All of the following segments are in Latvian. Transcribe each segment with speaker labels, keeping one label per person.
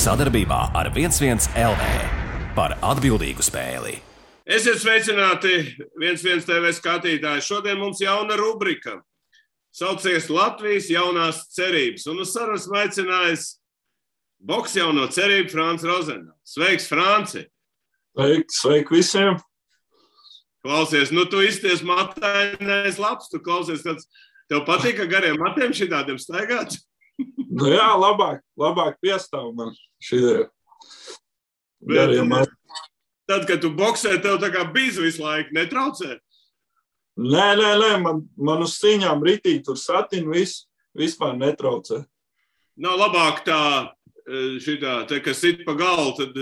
Speaker 1: Sadarbībā ar 11 LV par atbildīgu spēli.
Speaker 2: Esiet sveicināti 11 TV skatītāji. Šodien mums jauna rubrika. Saucies Latvijas jaunās cerības. Un uz sarunas aicinājis boks jauno cerību Frāns Rozenā. Sveiks, Frānci!
Speaker 3: Sveiki visiem!
Speaker 2: Klausies, tu izties matainais labs, tu klausies, tev patīk, ka gariem matiem šitādiem staigāt?
Speaker 3: Nu jā, labāk piestāv man šitie gariem matiem.
Speaker 2: Tad, kad tu boksē, tev tā kā bīz visu laiku, netraucē?
Speaker 3: Nē, man uz cīņām ritī tur satin vispār netraucē.
Speaker 2: Nav labāk tā, kas sit pa galvu, tad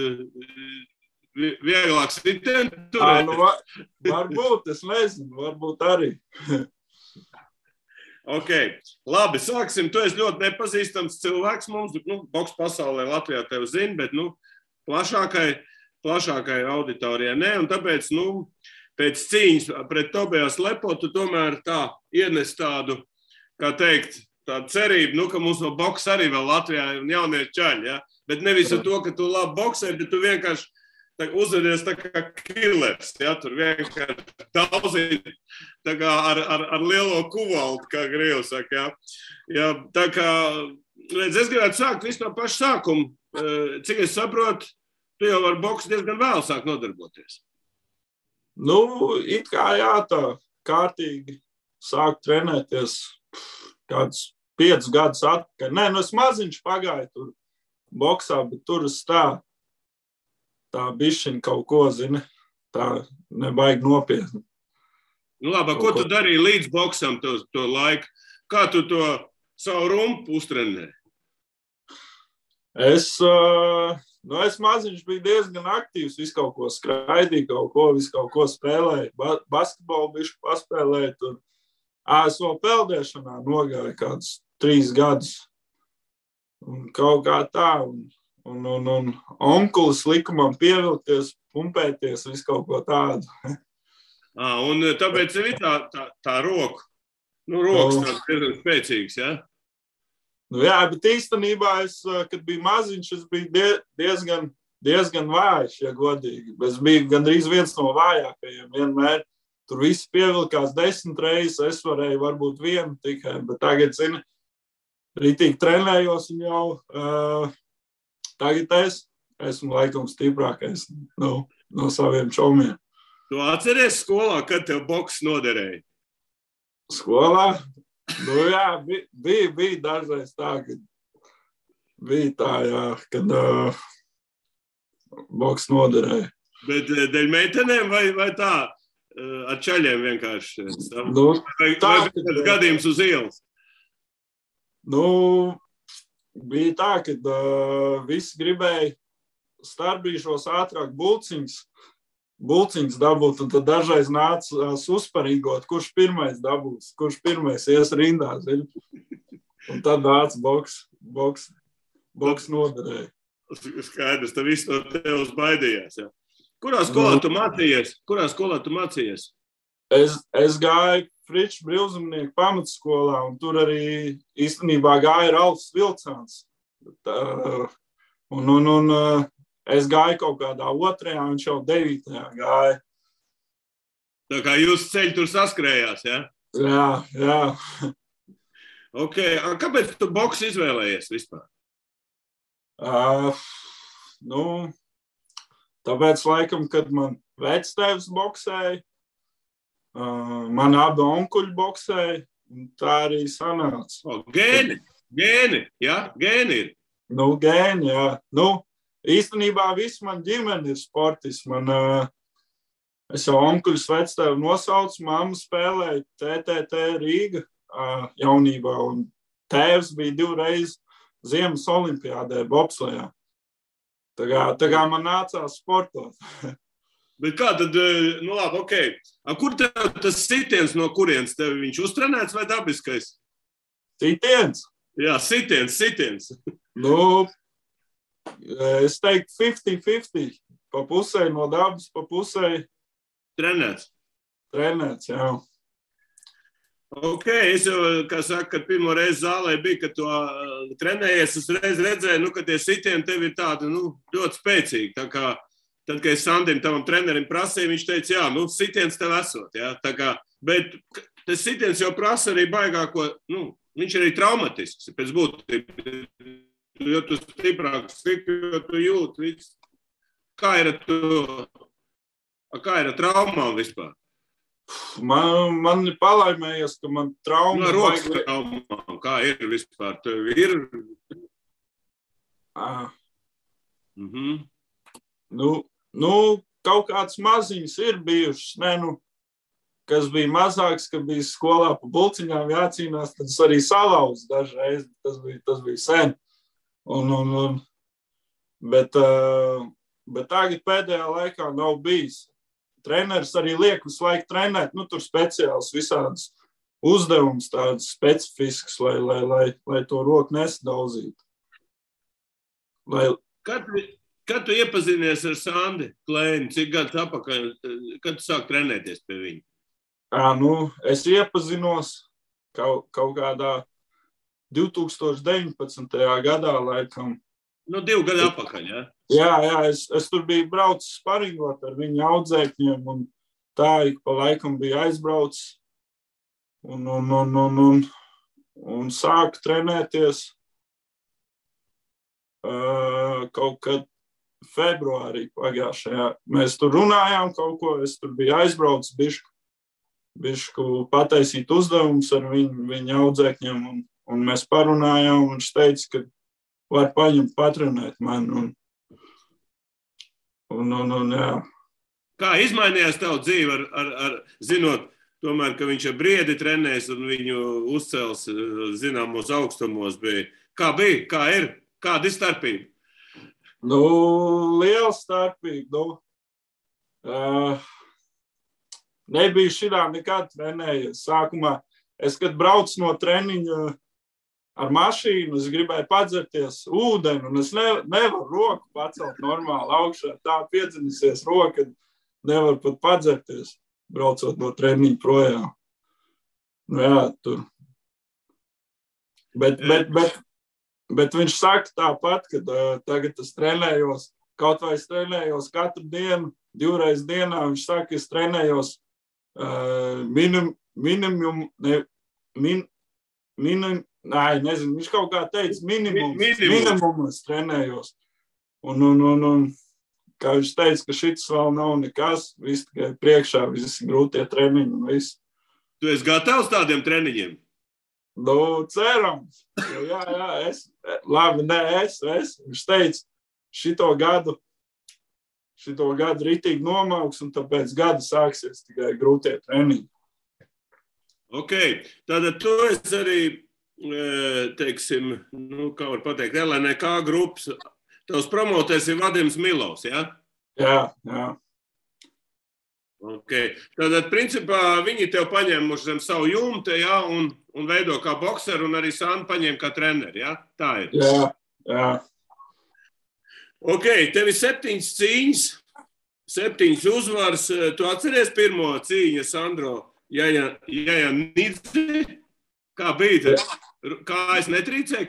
Speaker 2: vieglāk sitien turēt?
Speaker 3: Varbūt, es nezinu, varbūt arī.
Speaker 2: Ok, labi, sāksim. Tu esi ļoti nepazīstams cilvēks mums, boks pasaulē Latvijā tevi zina, bet, plašākai auditorijai ne, un tāpēc, pēc cīņas pret Tobijas Lepo, tu tomēr tā ienes tādu, kā teikt, tādu cerību, ka mums no boksa arī vēl Latvijā ir jaunie čaļi, ja? Bet nevis ar to, ka tu labi boksē, bet tu vienkārši uzvedies tā kā killers, ja? Tur vienkārši daudzīt tā kā ar lielo kuvaltu, kā Grievi saka, ja? Ja, tā kā, redz, es gribētu sākt visu no paša sākuma. Cik es saprotu, tu jau ar boksu diezgan vēl sāk nodarboties.
Speaker 3: It kā jā, tā kārtīgi sāk trenēties kāds 5 gadus atpakaļ. Nē, es maziņš pagāju tur boksā, bet tur es tā bišķiņ kaut ko, zini, tā nebaigi nopietni.
Speaker 2: Labi, ko tu darīji līdz boksam to laiku? Kā tu to savu rumpu uztrenēji?
Speaker 3: Es maziņš biju diezgan aktīvs, visu kaut ko skraidīju, visu kaut ko spēlēju. Basketbolu bišķi paspēlēju tur. Es vēl peldēšanā nogāju kādus 3 gadus. Un kaut kā tā. Un onkulis lika man pievilkties, pumpēties, visu kaut ko tādu.
Speaker 2: Un tāpēc ir tā roka. Rokas tāds diezgan spēcīgs, ja?
Speaker 3: Jā, bet īstenībā es, kad biju maziņš, es biju diezgan vājš, ja godīgi. Es biju gandrīz viens no vājākajiem vienmēr. Tur visi pievilkās 10 reizes, es varēju varbūt 1 tikai, bet tagad, zini, ritīgi trenējos un jau tagad es esmu laikam stiprākais no saviem čomiem.
Speaker 2: Tu atceries skolā, kad tev boks noderēja?
Speaker 3: Skolā? Jā, bija dažreiz tā, kad bija tā, jā, kad boks noderēja. Bet
Speaker 2: dēļ meitenēm vai tā ar čaļiem vienkārši?
Speaker 3: Tā,
Speaker 2: vai gadījums uz ielas?
Speaker 3: Bija tā, kad visi gribēja starpbrīžos ātrāk bulciņas dabūt, un tad dažreiz nāca uzparīgot, kurš pirmais dabūs, kurš pirmais ies rindā, zini. Un tad nāca boks noderēja.
Speaker 2: Skaidrs, tad viss no tevs baidījās, jā. Kurā skolā tu mācījies?
Speaker 3: Es gāju Friču brīvzemnieku pamatskolā, un tur arī īstenībā gāja Ralfs Vilcāns. Es gāju kaut kādā 2. un viņš jau 9. gāja.
Speaker 2: Tā kā jūs ceļi tur saskrējās, ja?
Speaker 3: Jā.
Speaker 2: Ok, kāpēc tu boksu izvēlējies vispār?
Speaker 3: Tāpēc laikam, kad man vectēvs boksēja, man abi onkuļi boksēja, un tā arī sanāca.
Speaker 2: Gēni, ja? Gēni ir?
Speaker 3: Gēni, jā. Īstenībā viss man ģimene ir sportists. Es jau onkuļus vectēvu nosaucu, mamma spēlēja TTT Rīga jaunībā, un tēvs bija 2 reizes Ziemas olimpiādē bobslejā. Tā kā man nācās sportot.
Speaker 2: Bet kā tad, labi, ok. Kur tev tas sitiens no kurienes? Tev viņš uztrenēts vai dabiskais?
Speaker 3: Sitiens?
Speaker 2: Jā, sitiens.
Speaker 3: Es teiktu 50-50. Pa pusē no dabas, pa pusē
Speaker 2: trenēts,
Speaker 3: jā.
Speaker 2: Ok, es jau, kā saka, kad pirmo reizi zālē bija, kad to trenējies, uzreiz redzēju, ka tie sitieni tev ir tādi, ļoti spēcīgi. Tā kā, tad, kad es Sandim, tavam trenerim prasīju, viņš teica, jā, sitiens tev esot, jā. Tā kā, bet tas sitiens jau prasa arī baigāko, viņš ir arī traumatisks, pēc būtības. Jo tu stiprāk siti, jo tu jūti viss. Kā ir ar traumām vispār?
Speaker 3: Man ir palaimējies, ka man trauma...
Speaker 2: Rokas traumām, kā ir vispār? Tev ir?
Speaker 3: Kaut kāds maziņas ir bijušas, kas bija mazāks, ka bija skolā pa bulciņām jācīnās, tad es arī salauzu dažreiz, tas bija sen. Bet tagad pēdējā laikā nav bijis. Treneris arī liek visu laiku trenēt, tur speciāls visādas uzdevumus, tādas specifiskas, lai to roku nesadauzītu.
Speaker 2: Kad tu iepazinies ar Sandi Klēni, cik gadus atpakaļ, kad tu sāk trenēties pie viņa?
Speaker 3: Es iepazinos kaut kādā 2019. gadā, laikam.
Speaker 2: 2 gadu atpakaļ, jā?
Speaker 3: Jā, es tur biju braucis sparingot ar viņu audzēkņiem, un tā ik pa laikam bija aizbraucis un sāku trenēties kaut kad februārī pagājušajā. Mēs tur runājām kaut ko, es tur biju aizbraucis bišku pataisīt uzdevumus ar viņu audzēkņiem, un mēs parunājām, un viņš teica, ka var paņemt patrenēt mani. Jā.
Speaker 2: Kā izmainījās tavu dzīvi, zinot, tomēr, ka viņš ar Briedi trenēs un viņu uzcels zināmos augstumos bija? Kā bija? Kā ir? Kāda ir starpība?
Speaker 3: Liela starpība. Nebija šitā nekad trenējies. Sākumā, kad braucu no treniņa ar mašīnu, es gribēju padzerties ūdeni, un es nevaru roku pacelt normāli augšā. Tā piedzinisies roka, nevaru pat padzerties, braucot no treniņa projām. Jā, tur. Bet viņš saka tāpat, ka tagad es trenējos, kaut vai es trenējos katru dienu, 2 reizes dienā, viņš saka, es trenējos nezinu, viņš kaut kā teica minimumu es trenējos. Un kā viņš teica, ka šis vēl nav nekas, viss tikai priekšā, visi grūtie treniņi un viss.
Speaker 2: Tu esi gatavs tādiem treniņiem?
Speaker 3: Cerams. Jā, es. Viņš teica, šito gadu ritīgi nomauks, un tāpēc gadu sāksies tikai grūtie treniņi.
Speaker 2: Ok, tātad tu esi arī, teiksim, kā var pateikt, LNK grupas, tavs promotēs ir Vadims Milovs, jā?
Speaker 3: Jā.
Speaker 2: Ok, tātad, principā, viņi tev paņēmuši zem savu jumtu, jā, un veido kā bokseru, un arī Sandu paņēma kā treneri, jā? Tā ir.
Speaker 3: Jā.
Speaker 2: Ok, tev ir 7 cīņas, 7 uzvaras. Tu atceries pirmo cīņu, Sandro? Jā, Nidzi? Kā bija? Kā es netrīcēju?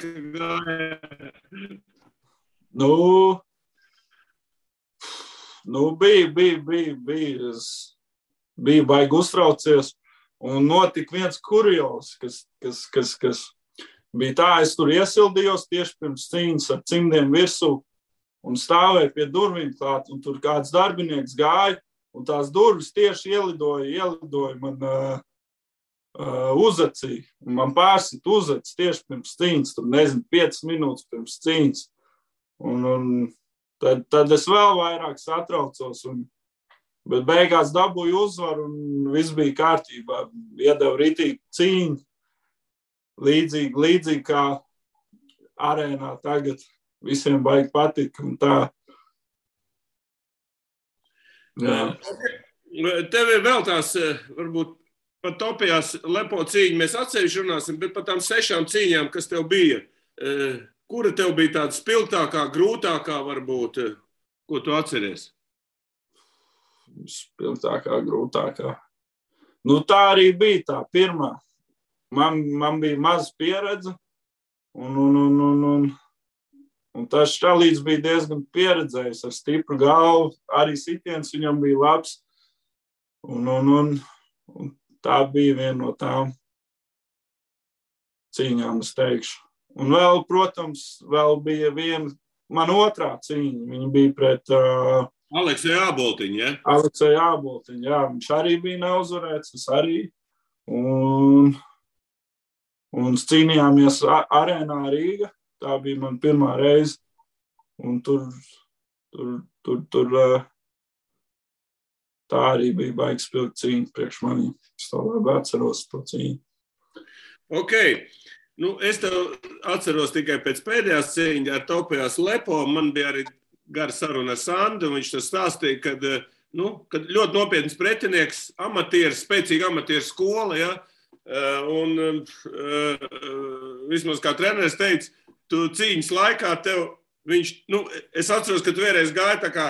Speaker 3: Bija baigi uztraucies, un notika viens kurjos, kas bija tā, es tur iesildījos tieši pirms cīņas ar cimdiem virsū, un stāvēju pie durvīm klāt, un tur kāds darbinieks gāja, un tās durvis tieši ielidoja man uzacī, un man pārsit uzacis tieši pirms cīņas, tur 5 minūtes pirms cīņas, un tad es vēl vairāk satraucos, bet beigās dabūju uzvaru, un viss bija kārtībā, iedeva ritīgi cīņu, līdzīgi kā arēnā tagad. Visiem baigi patika un tā. Jā.
Speaker 2: Tev ir vēl tās, varbūt pat topijās lepo cīņa, mēs atsevišķi runāsim, bet pat tām 6 cīņām, kas tev bija, kura tev bija tāda spilgtākā, grūtākā varbūt, ko tu atceries?
Speaker 3: Spilgtākā, grūtākā. Tā arī bija tā pirmā. man bija maz pieredze, un tas Šalīts bija diezgan pieredzējis ar stipru galvu, arī sitiens viņam bija labs, un tā bija viena no tām cīņām, es teikšu. Un vēl, protams, vēl bija viena, man otrā cīņa, viņa bija pret
Speaker 2: Alekseju Āboltiņu, ja?
Speaker 3: Alekseju Āboltiņu, jā, viņš arī bija neuzvarēts, es arī, un cīnījāmies arēnā Rīga, tā bija man pirmā reize, un tur tā arī bija baigs spilgt cīņa priekš manī. Es to labi atceros, to cīņu.
Speaker 2: Ok. Nu, es tev atceros tikai pēc pēdējās cīņas ar Topijās Lepo. Man bija arī gara saruna ar Sandu, un viņš tas stāstīja, kad ļoti nopietns pretinieks, amatieris, spēcīga amatieru skola, ja? Un vismaz kā treneris teica, tu cīņas laikā tev viņš, es atceros, ka tu vienreiz gāji tā kā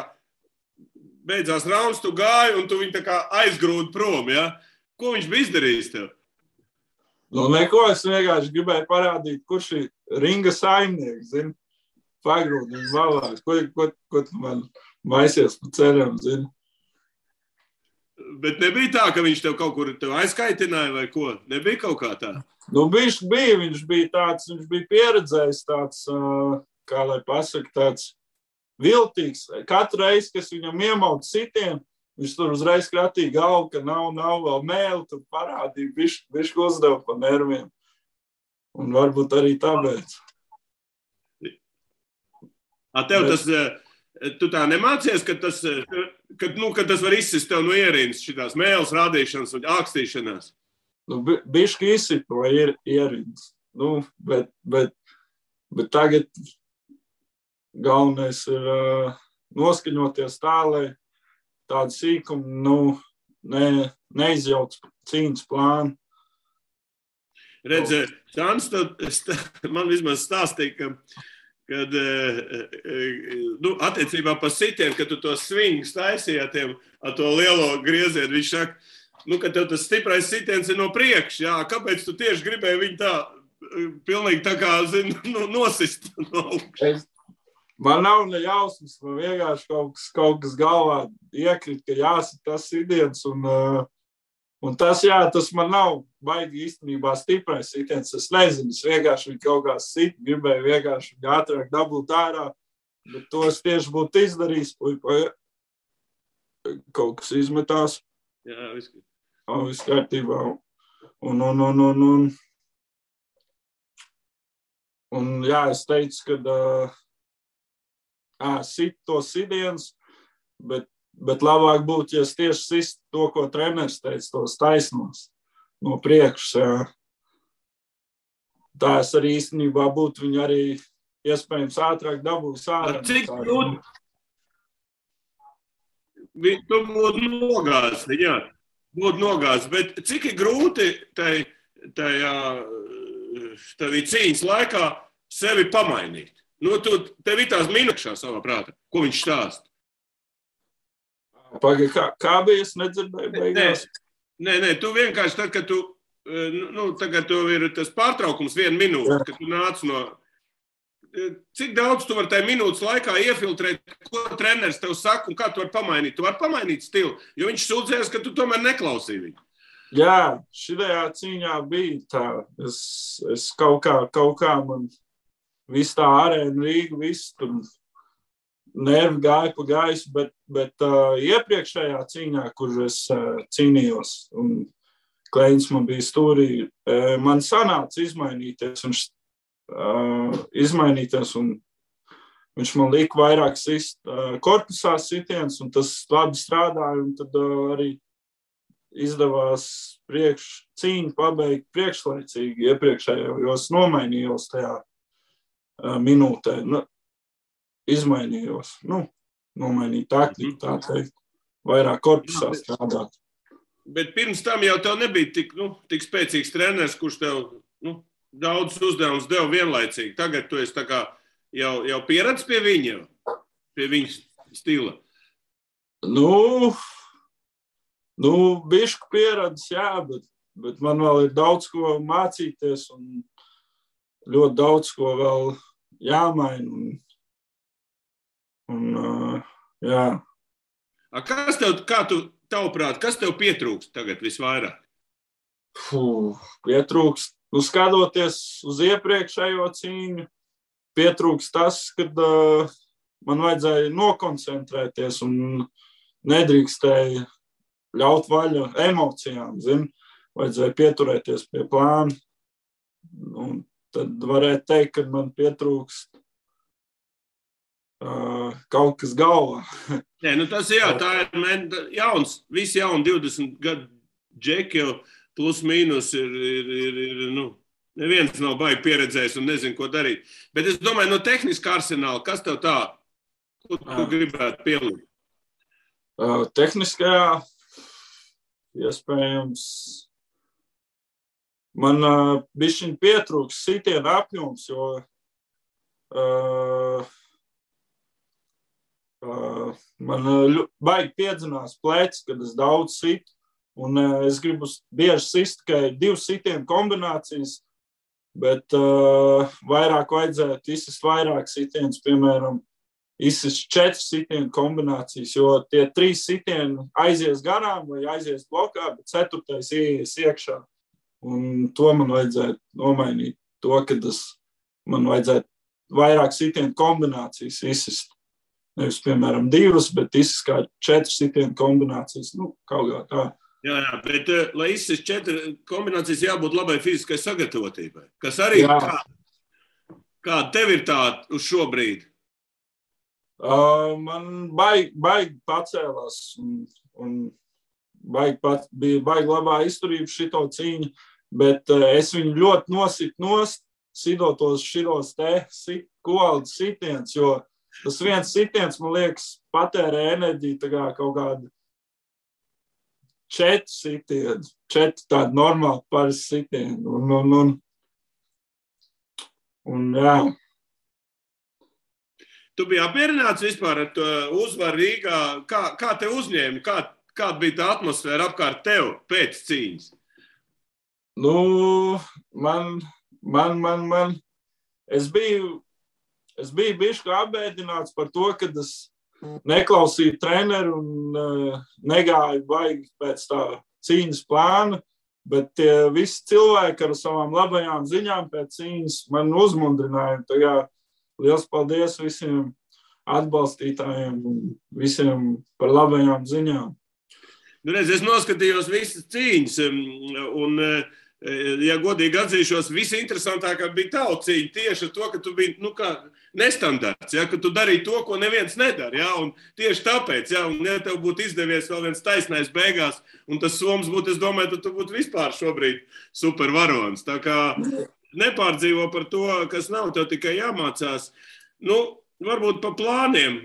Speaker 2: beidzās rauns, tu gāji un tu viņu tā kā aizgrūdi prom, ja? Ko viņš bija izdarījis tev?
Speaker 3: Neko, es vienkārši gribēju parādīt, kurš ir ringa saimnieks, zini, pagrūdi viņu valāk. Ko tu man maisies pa ceļam, zini?
Speaker 2: Bet nebija tā, ka viņš tev kaut kur aizkaitināja vai ko? Nebija kaut kā tā?
Speaker 3: Viņš bija pieredzējis tāds, kā lai pasaka, tāds viltīgs. Katru reizi, kas viņam iemaut sitienu, viņš tur uzreiz kratīja galvu, ka nav vēl mēli, tur parādīja, bišķi uzdeva pa nerviem. Un varbūt arī tāpēc.
Speaker 2: Tev tas, tu tā nemācies, ka tas var izsist tev no ierīnas šitās mēles rādīšanas un ākstīšanās?
Speaker 3: Bišķi izsit no ierīnas. Bet tagad galvenais ir noskaņoties tā, lai tādu sīkumu neizjauc cīņas plānu.
Speaker 2: Redz, Sāns, man vismaz stāstīja, kad attiecībā par sitienu, kad tu to svingus taisīji ar to lielo griezienu, viņš saka, ka tev tas stiprais sitiens ir no priekša, jā, kāpēc tu tieši gribēji viņu tā, pilnīgi tā kā, nosist no augšas?
Speaker 3: Man nav ne jausmas, man vienkārši kaut kas galvā iekrit, ka jāsit tas sitiens, un tas man nav baigi īstenībā stiprais sitiens. Es nezinu, es vienkārši viņu kaut kā sit, gribēju vienkārši viņu ātrāk dabūt ārā, bet to es tieši būtu izdarījis, kaut kas izmetās.
Speaker 2: Jā,
Speaker 3: viss kārtībā. Un jā, es teicu, ka sit to sidiens, bet labāk būtu, ja es tieši sist to, ko treneris teica, tos taisnos no priekšas. Jā. Tā es arī īstenībā būtu viņu arī iespējams ātrāk dabūs ārā.
Speaker 2: Cik grūti? Tu būtu nogāzis, jā. Būtu nogāzis, bet cik ir grūti tajā cīņas laikā sevi pamainīt? Tev ir tās minūkšā savā prātā. Ko viņš stāsta?
Speaker 3: Kā bija? Es nedzirdēju beigās.
Speaker 2: Nē, tu vienkārši tad, kad tagad tev ir tas pārtraukums 1 minūte, kad tu nāc no... Cik daudz tu vari tajā minūtes laikā iefiltrēt, ko treneris tev saka un kā tu vari pamainīt? Tu vari pamainīt stilu, jo viņš sūdzēs, ka tu tomēr neklausīji viņu.
Speaker 3: Jā, šitajā cīņā bija tā. Es kaut kā man... Viss tā arēna Rīga, viss tur nervi gāja pa gaisu, bet iepriekšējā cīņā, kur es cīnījos, un Kleiņš man bija stūrī, man sanāca izmainīties, un viņš man lika vairāk sist korpusā sitiens, un tas labi strādāja, un tad arī izdevās cīņu pabeigt priekšlaicīgi iepriekšējā, jo es nomainījos tajā minūtē, izmainījos, nomainīju taktiku, tā teikt, vairāk korpusā strādāt.
Speaker 2: Bet pirms tam jau tev nebija tik spēcīgs treneris, kurš tev daudz uzdevumus deva vienlaicīgi. Tagad tu esi tā kā jau pieredzi pie viņa stila.
Speaker 3: Bišku pieredzi, jā, bet man vēl ir daudz ko mācīties un ļoti daudz ko vēl jāmaina. Jā.
Speaker 2: Tavuprāt, kas tev pietrūkst tagad visvairāk?
Speaker 3: Pietrūkst. Skatoties uz iepriekšējo cīņu, pietrūkst tas, kad man vajadzēja nokoncentrēties un nedrīkstēja ļaut vaļu emocijām, vajadzēja pieturēties pie plāna. Un tad varētu teikt, ka man pietrūkst kaut kas galvā.
Speaker 2: Nē, tas tā ir jauns, visi jauni 20 gadu džeki jau plus mīnus ir neviens nav baigi pieredzējis un nezinu, ko darīt. Bet es domāju, no tehniskā arsenāla, kas tev tā, ko tu gribētu pielikt?
Speaker 3: Tehniskajā, iespējams, man bišķiņ pietrūks sitiena apjoms, jo man baigi piedzinās plecs, kad es daudz situ, un es gribu bieži sist tikai 2 sitienu kombinācijas, bet vairāk vajadzētu izsist vairāk sitienus, piemēram, izsist 4 sitienu kombinācijas, jo tie 3 sitieni aizies garām vai aizies blokā, bet 4. ieies iekšā. Un to man vajadzētu nomainīt, kad man vajadzētu vairāk sitienu kombinācijas izsist. Nevis, piemēram, 2, bet izsist kā 4 sitienu kombinācijas, kaut kā tā.
Speaker 2: Jā, bet, lai izsist 4 kombinācijas, jābūt labai fiziskai sagatavotībai, kas arī kā tev ir tā uz šo brīdi?
Speaker 3: Man baigi pacēlās un bija baigi labā izturība šito cīņu, bet es viņu ļoti nositu sidotos šitos kovaldas sitiens, jo tas viens sitiens, man liekas, patērē enerģiju tā kā kaut kādu 4 sitienu, 4 tādu normāli parasti sitienu. Un jā.
Speaker 2: Tu biji apmierināts vispār ar to uzvaru Rīgā? Kā te uzņēmi? Kāda bija tā atmosfēra apkārt tev pēc cīņas?
Speaker 3: Es biju bišķi apbēdināts par to, kad es neklausīju treneru un negāju baigi pēc tā cīņas plāna, bet visi cilvēki ar savām labajām ziņām pēc cīņas man uzmundrināja. Tagad liels paldies visiem atbalstītājiem un visiem par labajām ziņām.
Speaker 2: Es noskatījos visas cīņas un, ja godīgi atzīšos, visinteresantākā bija tava cīņa tieši ar to, ka tu biji, nestandarts, ka tu darīji to, ko neviens nedara, un tieši tāpēc, un ja tev būtu izdevies vēl viens taisnais beigās, un tas soms būtu, es domāju, tu būtu vispār šobrīd supervaronis. Tā kā nepārdzīvo par to, kas nav, tev tikai jāmācās. Varbūt pa plāniem,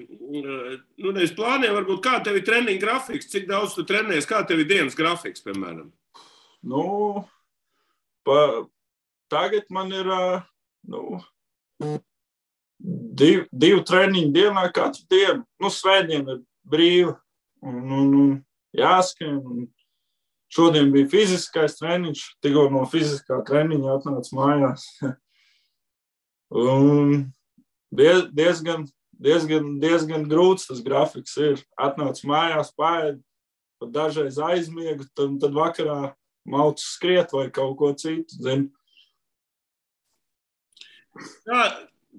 Speaker 2: nevis plāniem, varbūt kā tev ir treniņa grafiks, cik daudz tu trenējies, kā tev ir dienas grafiks, piemēram?
Speaker 3: Tagad man ir 2 treniņu dienā katru dienu. Svētdien ir brīva un jāskrien. Šodien bija fiziskais treniņš, tikko no fiziskā treniņa atnāca mājās. Un diezgan grūts tas grafiks ir. Atnāca mājās, paēd, pat dažreiz aizmiegu, tad vakarā maucu skriet vai kaut ko citu, zini.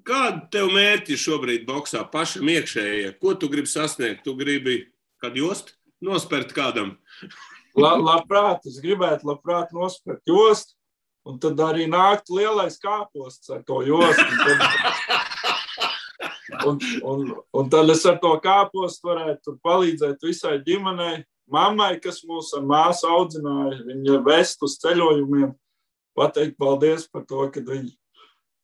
Speaker 2: Kāda tev mērķi šobrīd boksā pašam iekšējie? Ko tu gribi sasniegt? Tu gribi kādu jostu nospert kādam?
Speaker 3: Es gribētu labprāt nospert jostu, un tad arī nākt lielais kāposts ar to jostu. Un tad es ar to kāpostu varētu palīdzēt visai ģimenei. Mammai, kas mūs ar māsu audzināja, viņa vest uz ceļojumiem, pateikt paldies par to, ka viņa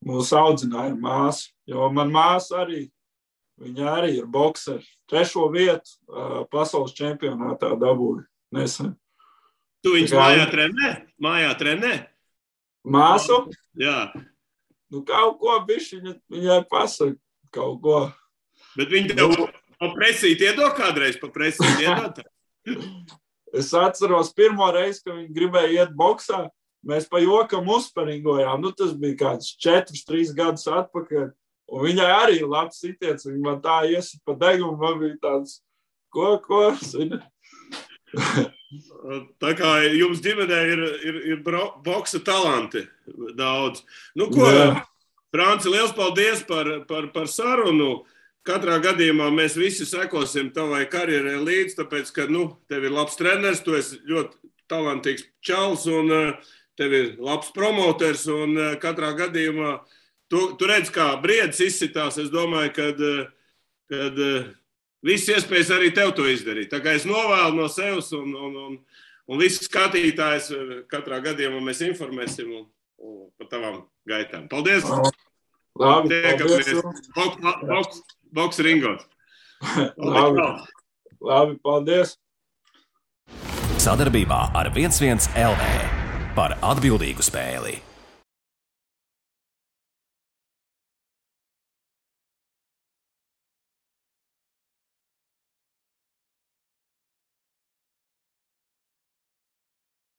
Speaker 3: mūs audzināja māsu. Jo man māsa arī, viņa arī ir bokseri. 3. vietu pasaules čempionātā dabūja nesen.
Speaker 2: Tu viņus mājā trenē?
Speaker 3: Māsu?
Speaker 2: Jā.
Speaker 3: Kaut ko bišķi viņai pasaka, kaut ko.
Speaker 2: Bet viņi tev pa presīt iedod kādreiz, pa presīt iedod?
Speaker 3: Es atceros pirmo reizi, kad viņi gribēja iet boksā, mēs pa jokam uzsparingojām. Nu, tas bija kāds 4-3 gadus atpakaļ. Un viņai arī labs sitiens. Viņa man tā iesit pa degumu, man bija tāds, ko?
Speaker 2: Tā kā jums ģimenē ir boksa talanti daudz. Nu, ko, Franci, liels paldies par sarunu. Katrā gadījumā mēs visi sekosim tavai karjerai līdz, tāpēc, ka, tev ir labs treneris, tu esi ļoti talantīgs čals un tev ir labs promoters un katrā gadījumā tu redz, kā briedis izsitās. Es domāju, kad viss iespējas arī tev to izdarīt. Tā kā es novēlu no sevis un visi skatītājs katrā gadījumā mēs informēsim par tavām gaitām. Paldies!
Speaker 3: Labi,
Speaker 2: paldies! Boks ringos.
Speaker 3: Labi, paldies!
Speaker 1: Sadarbībā ar 11 LV par atbildīgu spēli.